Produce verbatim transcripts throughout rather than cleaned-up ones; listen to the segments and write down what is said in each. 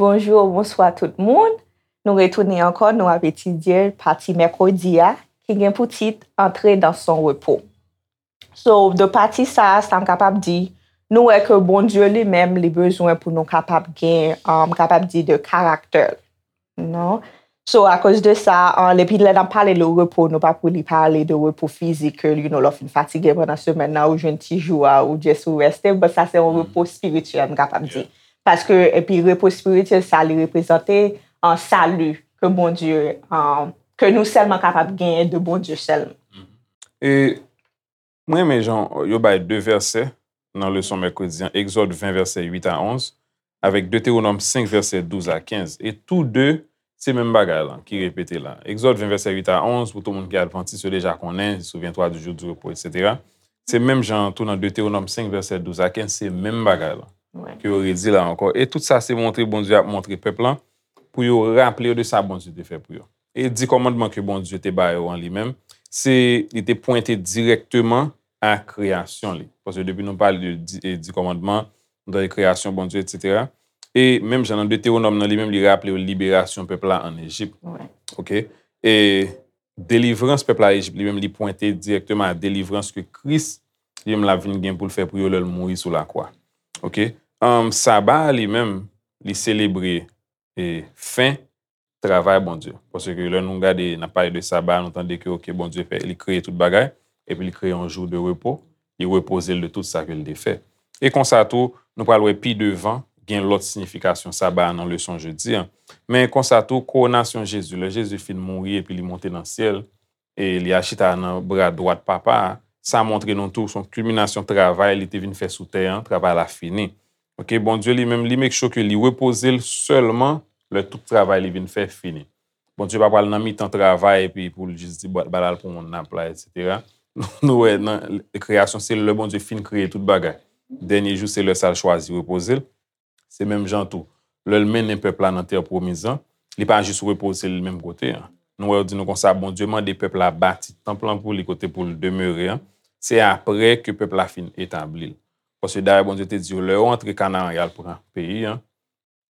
Bonjou, bonswa tout moun. Nou retounen ankò, nou ap etidye pati mèkredi a, ki gen pou tit Entrer dans son repos. So, de pati sa a, sa m kapab di, nou wè ke Bondye li menm, li bezwen pou nou kapab gen, um, m kapab di de character. Non? So, akoz de sa, um, epi lè n ap pale de repo, nou pa pou li pale de repo fizik, ke, you know, lè w fin fatige pandan semèn nan, ou jwenn ti jou a, ou just ou reste, but sa se yon repo espirityèl, m kapab di. Paske, epi repo espirityèl, sa li reprezante, um, sali ke Bondye, um, ke nou sèlman kapab genyen de Bondye sèlman. E mwen renmen jan yo bay de vèsè nan leson mèkredi an, Egzòd ven vèsè uit a onz, avèk Detewonòm senk vèsè douz a kenz. E tou de, se menm bagay la ki repete la. Egzòd ven vèsè uit a onz, pou tout moun ki advantis, yo deja konnen, souviens-toi du jour du repos, etsetera. Se menm jan tou nan Detewonòm senk vèsè douz a kenz, se menm bagay la. Ke yo redi la ankò. E tout sa se montre Bondye ap montre pèp lan pou yo raple yo de sa Bondye te fè pou yo. E di kòmandman ke Bondye te ba yo an li menm, se li te pwente dirèkteman a kreyasyon li. Paske depi nou pale de di, e di kòmandman, nou tande kreyasyon Bondye, etsetera. E menm jan nan Detewonòm nan li menm, li raple yo liberasyon pèp la ann Ejip. Ok? E delivrans pèp la Ejip li menm, li pwente dirèkteman a delivrans ke Kris li menm l ap vin gen pou l fè pou yo lè l mouri sou lakwa. Ok? Um, Saba a li menm, li selebre e fen travay Bondye. Paske lè nou gade, n ap pale de Saba, nou tande ke, ok, Bondye fè, li kreye tout bagay, epi li kreye yon jou de repo, li repoze l de tout sa ke l te fè. E konsa tou, nou pral wè pi devan, gen lòt siyifikasyon Saba a nan leson jedi a. Men konsa tou, kowonasyon Jezi, lè Jezi fin mouri epi li monte nan syèl, e li al chita nan bra dwat Papa a, sa montre nou tou se yon kilminasyon travay li te vin fè sou tè an, travay la fini. Ok, Bondye li menm, li make sure ke li repoze l sèlman lè tout travay li vin fè fini. Bondye pa pral nan mitan travay epi pou l jis di, "Bon, ba l al pran yon nap la, etsetera." Nou wè nan kreyasyon, se lè Bondye fin kreye tout bagay. Dènye jou, se lè sa l chwazi repoze l. Se menm jan tou, lè l mennen pèp la nan tè pwomiz lan, li pa jis repoze l menm kote an. Nou wè yo di nou konsa, Bondye mande pèp la bati tanp lan pou li kote pou l demere an. Se apre ke pèp la fin etabli l. Paske dayè Bondye te di yo, lè yo antre Kanaran, y al pran peyi an,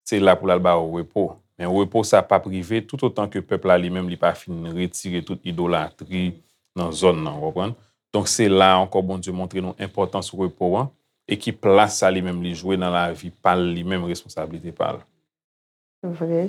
se la pou l al ba yo repo. Men repo sa p ap rive toutotan ke pèp la li menm li pa fin retire tout idolatri nan zòn nan, w konprann? Donk se la ankò Bondye montre nou enpòtans repo an e ki plas sa li menm li jwe nan lavi pa l li menm, responsablite pa l. Vre.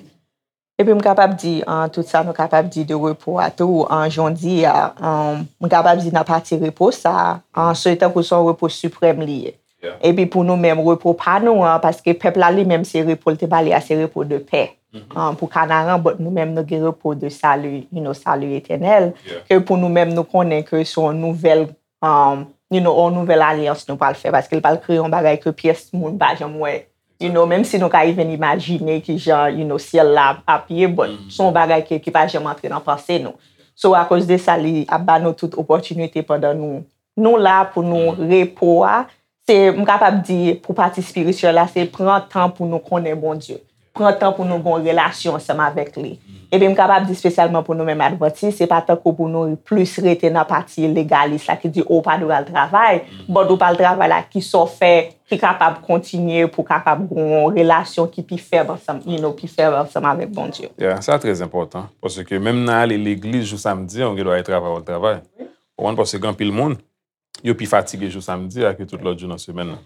Epi m kapab di, an, tout sa nou kapab di de repo a tou, an, jan w di a, an, m kapab di nan pati repo sa, an, se tankou se yon repo siprèm li ye. Epi pou nou menm, repo pa nou an, paske pèp la li menm se repo l te ba li a, se repo de pè. An, pou Kanaran, but nou menm nou gen repo de sali, you know, sali etènèl, ke pou nou menm nou konnen ke se yon nouvèl, um, you know, yon nouvèl alyans nou pral fè, paske l pral kreye yon bagay ke pyès moun pa janm wè. You know, menm si nou ka even imajine kijan, you know, syèl la ap ye, but se yon bagay ke, ki pa janm antre nan panse nou. So, akoz de sa, li ap ba nou tout opòtinite pandan nou, nou la pou nou repo a. Se, m kapab di, pou pati espirityèl la, se pran tan pou nou konnen Bondye. Pran tan pou nou gen yon relasyon ansanm avèk li. Epi m kapab di espesyalman pou nou menm advantis, se pa tankou pou nou plis rete nan pati legalis la ki di, o, w pa dwe al travay, but ou pa al travay la, kisa w fè ki kapab kontinye pou kapab gen yon relasyon ki pi fèb ansanm, you know, pi fèb ansanm avèk Bondye. Yeah, sa trè enpòtan, paske menm nan ale legliz jou samdi an, ou gen dwa al travay, w al travay. Ou konprann, paske gen anpil moun, yo pi fatige jou samdi a ke tout lòt jou nan semèn nan.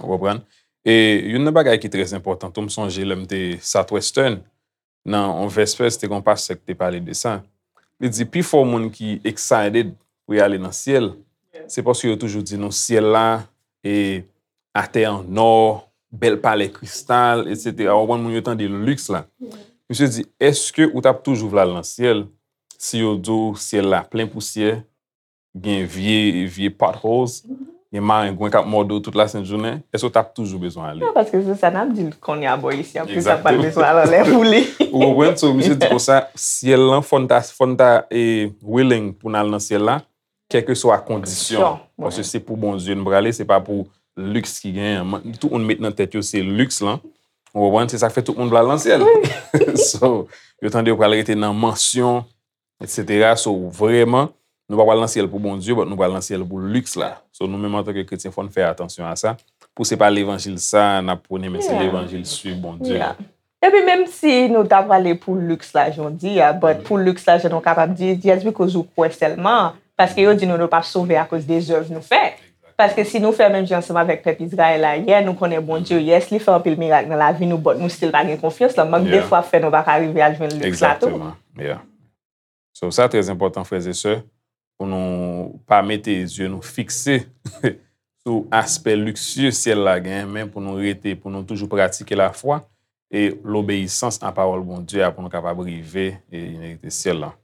Ou konprann? E youn nan bagay ki trè enpòtan tou, m sonje lè m te Southwestern, nan yon vèspè, se te gen yon pastè ki te pale de sa. Li di, pifò moun ki excited pou y ale nan syèl, se paske yo toujou di nou syèl la, e atè an nò, bèl palè kristal, etsetera. Ou konprann, moun yo tande liks la. Misye di, èske ou t ap toujou vle al nan syèl si yo di w syèl la plen pousyè, gen vye, vye potholes, gen marengwen k ap mòde w tout lasent jounen, èske w t ap toujou bezwen ale? Non, paske se sa n ap di l kounye a bò isi an, poukisa m pral bezwen al anlè pou li? Ou konprann? So, misye di konsa, syèl lan, fò n ta, fò n ta e, willing pou n al nan syèl la, kèlkeswa kondisyon. Paske se pou Bondye n prale, se pa pou liks ki genyen an. Tout moun met nan tèt yo se liks lan. Ou konprann? Se sa k fè tout moun vle al nan syèl. So, yo tande yo pral rete nan mansyon, etsetera. So, vrèman, nou pa pral nan syèl pou Bondye, but nou pral nan syèl pou liks la. So, nou menm antanke kretyen, fò n fè atansyon a sa. Pou se pa levanjil sa n ap pwone, men se levanjil swiv Bondye. Epi menm si nou ta prale pou liks la jan w di a, but pou liks la jan nou kapab di, just because ou kwè sèlman, paske yo di nou nou p ap sove akoz de zèv nou fè. Paske si nou fè menm jan ansanm avèk pèp Izrayèl la yè, nou konnen Bondye, yes, li fè anpil mirak nan lavi nou, but nou still pa gen konfyans lan. Mank de fwa ap fè nou pa ka rive al jwenn liks la tou. Exactement. Yeah. So, sa trè enpòtan, frè e sè, pou nou pa mete zye nou fikse sou aspè liksye syèl la gen, men pou nou rete, pou nou toujou pratike lafwa e lobeyisans a pawòl Bondye a pou nou kapab rive e inerite syèl la.